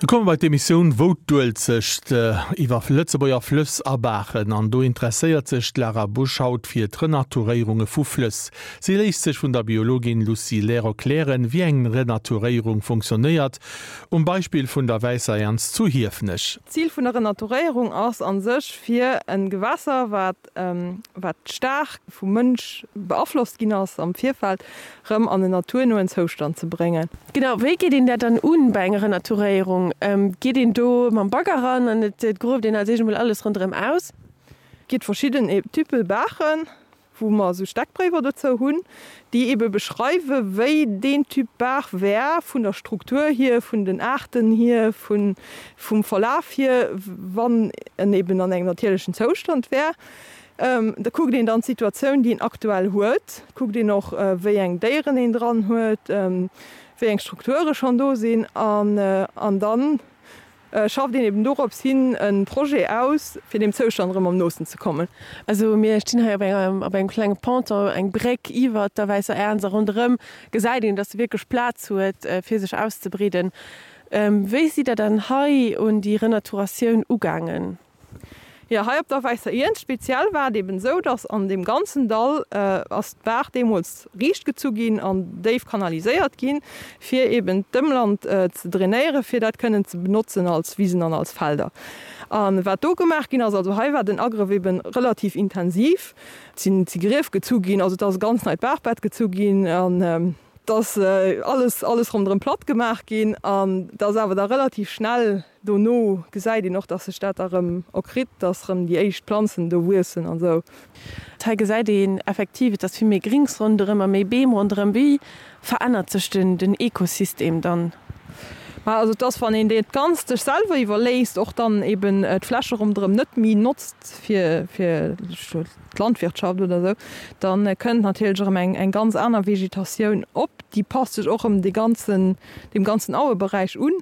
Mir komme bei d'Emissioun Wou d'Uelzecht iwwer Lëtzebuerger Flëss a Baachen. An do interesséiert sech d'Lara Busch haut fir d'Renaturéierunge vu Flëss. Si léisst sech vun der Biologin Lucie Lehr erklären, wéi eng Renaturéierung funktionéiert, um Beispill vun der Wäisser Ernz zu Hiefenech. D'Zil vun der Renaturéierung ass a sech, fir e Gewässer, wat wat staark vum Mënsch beaflosst ginn ass am Virfeld, rëm an en naturnoen Zoustand ze bréngen. Genau, wéi geet een dat dann un bei enger Renaturéierung? Geet een do mam Bagger ran an et grueft een als éischt emol alles ronderëm aus? Et ginn verschidden Typpe Baachen, wou mer esou Steckbréiwer dozou hunn, déi ebe beschreiwe wéi deen Typ Baach wär vun der Struktur hier, vun den Aarten hier, vum Verlaf hier, wann en eben an engem natierlechen Zoustand wär. Da kuckt een dann d'Situatioun, déi een aktuell huet, kuckt een och, wéi eng Déieren een dran huet, wéi eng Strukture schonn do sinn an dann schafft een eben dorops hin e Projet aus, fir deem Zoustand erëm am noosten ze kommen. Also mir stinn hei op engem op engem klenge Ponton, eng Bréck iwwert der Wäisser Ernz a ronderëm gesäit een, dass se wierklech Plaz huet, fir sech auszebreeden. Wéi sidd Der dann hei un déi Renaturatioun ugaangen? Jo, hei op der Wäisser Iernz speziell war et eben esou, dass an deem ganzen Dall ass d'Baach deemools riicht gezu ginn an déif kanaliséiert ginn, fir eben d'Ëmland ze drainéieren, fir dat kënnen ze benotzen als Wisen an als Felder. A wat do gemaach ginn ass, also hei war den Agrëff eben relativ intensiv, et sinn si Grief gezu ginn, also et ass e ganz neit Baachbett gezu ginn an et ass alles, alles ronderëm platt gemaach ginn an et ass awer da relativ schnell, Dono gesäit een och, dass sech dat da rëm erkritt, dass rëm déi éischt Planzen do wuessen an esou. Hei gesäit een effektiv, et ass vill méi Grings ronderëm a méi Beem ronderëm. Wéi verännert sech den Ekosystem dann? Ma also et ass, wann een dat Ganzt sech selwer iwwerléisst, och dann eben d'Fläche ronderëm net méi notzt fir fir d'Landwirtschaft oder esou, da kënnt natierlech erëm eng eng ganz aner Vegetatioun op. Déi passt sech och erëm de ganzen deem ganzen Aueberäich un.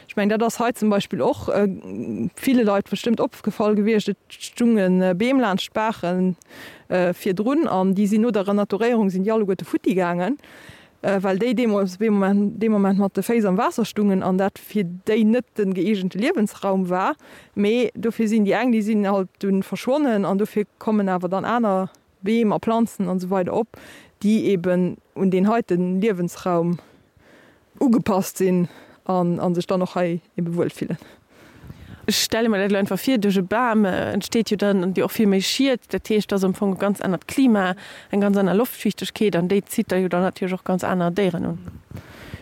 Ech mengen, dat ass hei zum Beispill och ville Leit bestëmmt opgefall gewiescht, Et stunge Beem laanscht d'Baache virdrun an déi sinn no der Renaturéierung sinn déi alleguerte futti gaangen, well déi deemools dee Moment mat de Féiss am Waasser stungen an dat fir déi net de gëeegente Liewensraum war. Mee dofir sinn déi eng, déi sinn halt dunn verschwonnen an dofir kommen awer dann aner Beem a Planzen an esou weider op, déi eben un deen heite Liewensraum ugepasst sinn an a sech dann och hei ebe wuel fillen. Ech stelle mer dat elo einfach vir, duerch e Bam entsteet jo dann och vill méi Schied. Dat heescht, et ass am Fong e ganz anert Klima, eng ganz aner Loftfiichtegkeet an déi zitt da jo dann natierlech och ganz aner Déieren un.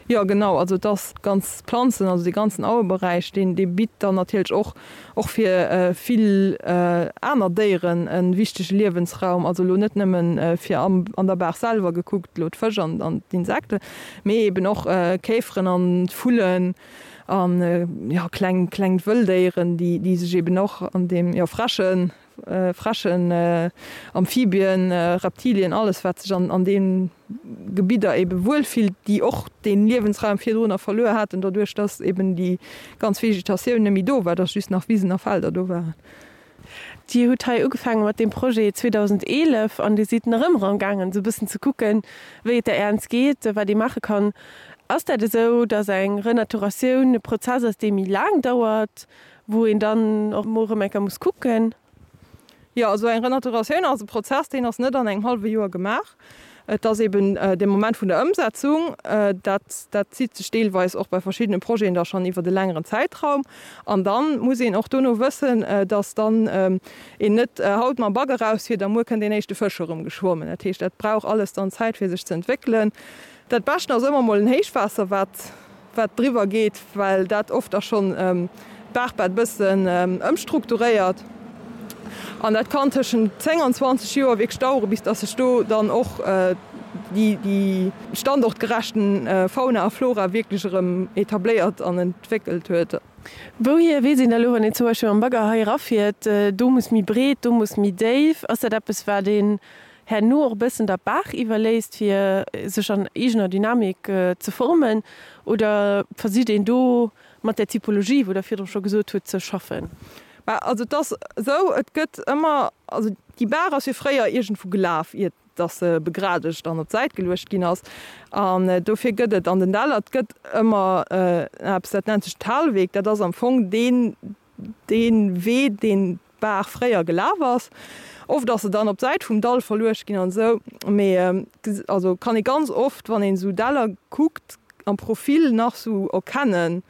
Jo genau, also et ass ganz Planzen, also dee ganzen Aueberäich, deen dee bitt dann natierlech och och fir vill aner Déieren e wichtege Liewensraum, also elo net nëmmen fir am an der Baach selwer gekuckt, elo d'Fësch an an d'Insekten, mee eben och Käferen an Vullen an jo kleng kleng Wëlldéieren, déi déi sech eben och an deem jo Fräschen Fräschen, Amphibien, Reptilien, alles wat sech an deem Gebidder ebe wuel fillt, déi och dee Liewensraum virdrunner verluer haten, doduerch datt eben déi ganz Vegetatioun net méi do war, datt just nach Wisen a Felder do waren. Dir hutt hei ugefaange mat deem Projet 2011 an Dir sidd nach ëmmer am gaangen esou e bëssen ze kucken, wéi et der Ernz geet, wat ee maache kann. Ass dat esou, datt eng Renaturatioun e Prozess ass, dee méi laang dauert, Wou een dann och mol erëm eng Kéier muss kucken. Jo, also eng Renaturatioun ass e Prozess, deen ass net an engem hallwe Joer gemaach. Et ass eben de Moment vun der Ëmsetzung, dat, dat zitt sech deelweis och bei verschiddene Projeten da schonn iwwert e längeren Zäitraum. An da muss een och dono wëssen, dass dann een net haut mam Bagger erausfiert a muer kënnt deen éischte Fësch erëm geschwommen. Dat heescht, dat brauch alles dann Zäit, fir sech ze entwéckelen. Dat Beschten ass ëmmer mol en Héichwaasser, wat wat driwwer geet, well dat oft da schonn d'Baachbett bëssen ëmstrukturéiert. An dat kann tëschent 10 an 20 Joer wierklech dauere bis datt sech do dann och déi standortgerechten Fauna a Flora wierklech erëm etabléiert an entwéckelt huet. Wouhier weess een da lo, wann een zum Beispill mam Bagger hei erafiert, do muss méi breet, do muss méi déif? Ass dat eppes, wat een herno och e bëssen der Baach iwwerléisst, fir sech an eegener Dynamik ze formen, oder versicht een do mat där Typologie, wou Der virdru scho gesot hutt, ze schaffen? Bah, also et ass esou, et gëtt ëmmer, also déi Baach ass jo fréier iergendwou gelaf, iert. dass se begradegt an op d'Säit geluecht ginn ass. An dofir gëtt et an den Däller, et gëtt ëmmer eppes, dat nennt sech Talweg. Dat ass am Fong deen, dee Wee, deen d'Baach fréier gelaf ass. Oft ass se dann op d'Säit vum Dall verluecht ginn an esou. Mee also kann ee ganz oft, wann een esou Däller kuckt, am Profil nach sou erkennen,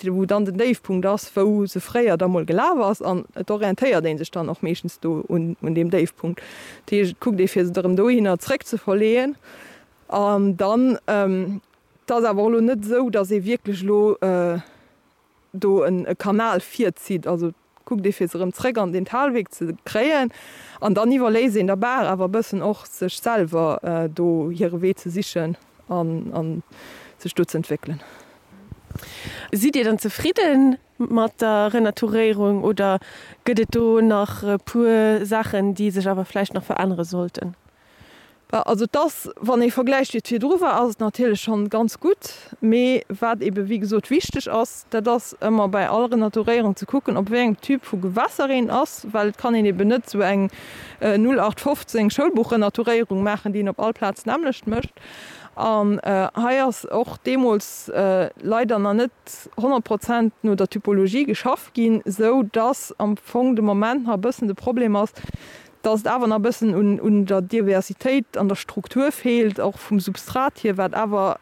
wou dann den Déifpunkt ass, wou se fréier da mol gelaf ass an et orientéiert ee sech dann och meeschtens do un deem Déifpunkt. Dat heescht, et kuckt ee fir se erëm dohinner zréck ze verleeën an dann, et ass awer och elo net esou, datt ee wierklech elo do e Kanal virzitt, also kuckt ee fir se erëm zréck an den Talweg ze kréien an dann iwwerléisst een der Baach awer e bëssen och sech selwer do hire Wee ze sichen an sech do ze entwéckelen. Sidd Dir dann zefridde mat der Renaturéierung oder gëtt et do nach e puer Saachen, déi sech awer vläicht nach verännere sollten? Also et ass, wann ee vergläicht wéi et virdru war, ass et natierlech schonn ganz gutt. Mee wat eebe wéi gesot wichteg ass, dat ass ëmmer bei all Renaturéierung ze kucken, op wéi engem Typ vu Gewässer een ass, well et kann een eeben net esou eng 0815 Schoulbuch-Renaturéierung maachen, déi een op all Plaz d'nämmlecht mécht. An hei ass och deemools leider nach net 100 Prozent no der Typologie geschafft ginn, esou dass am Fong de Moment nach e bëssen de Problem ass, dass et awer nach e bëssen un der Diversitéit an der Struktur feelt, och vum Substrat hier, wat awer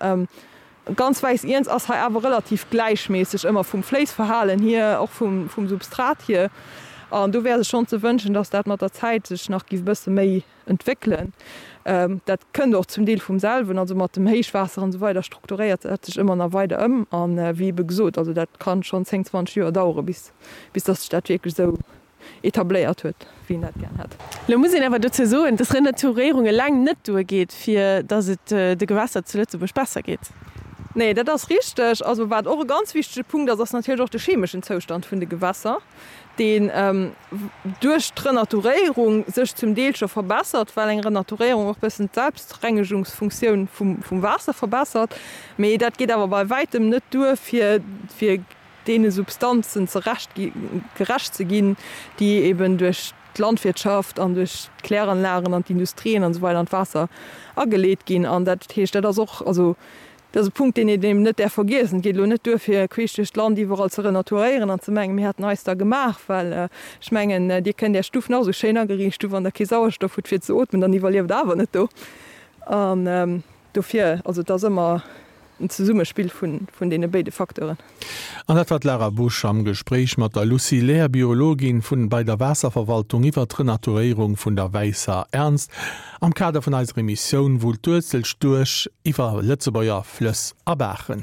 ganz wäiss Iernz ass hei awer relativ gläichméisseg ëmmer vum Fléissverhalen hier, och vum Substrat hier. An do wär sech schonn ze wënschen, dass dat mat der Zäit sech nach géif e bësse méi entwéckelen. Dat kënnt och zum Deel vum selwen, also mat dem Héichwaasser an esou weider strukturéiert dat sech ëmmer nach weider ëm. An wéi ebe gesot, also dat ka schonn 10, 20 Joer dauere bis dass sech dat wierklech esou etabléiert huet, wéi een dat gär hätt. Lo muss een awer dozou soen, dass Renaturéierung eleng net duergeet, fir dass et de Gewässer zu Lëtzebuerg besser geet. Nee, dat ass richteg. Also wat och e ganz wichtege Punkt ass, ass natierlech och de chemeschen Zoustand vun de Gewässer, deen duerch d'Renaturéierung sech zum Deel scho verbessert, well eng Renaturéierung och e bëssen d'Selbstrengegungsfunktioun vum Waasser verbessert. Mee dat geet awer bei wäitem net duer, fir deene Substanzen zerecht gerecht ze ginn, déi eben duerch d'Landwirtschaft an duerch d'Kläranlagen an d'Industrien an esou weider an d'Waasser ageleet ginn. An dat heescht, dat ass och, also dat ass e Punkt, deen een eben net däerf vergiessen. Et geet elo net duer, fir queesch duerch d'Land iwwerall ze renaturéieren an ze mengen, mir hätten eis da gemaach, well ech mengen, Dir kënnt Är Stuff nach esou schéin ageriicht hu, wann Der kee Sauerstoff hutt fir ze ootmen, dann iwwerlieft Der awer net do. An dofir, also et ass ëmmer en Zesummespill vun deene béide Facteuren. An dat war d'Lara Busch am Gespréich mat der Lucie Lehr, Biologin vun bei der Waasserverwaltung iwwer d'Renaturéierung vun der Wäisser Ernst am Kader vun eiser Emissioun Wullt d'Uelzecht duerch iwwer Lëtzebuerger Flëss a Baachen.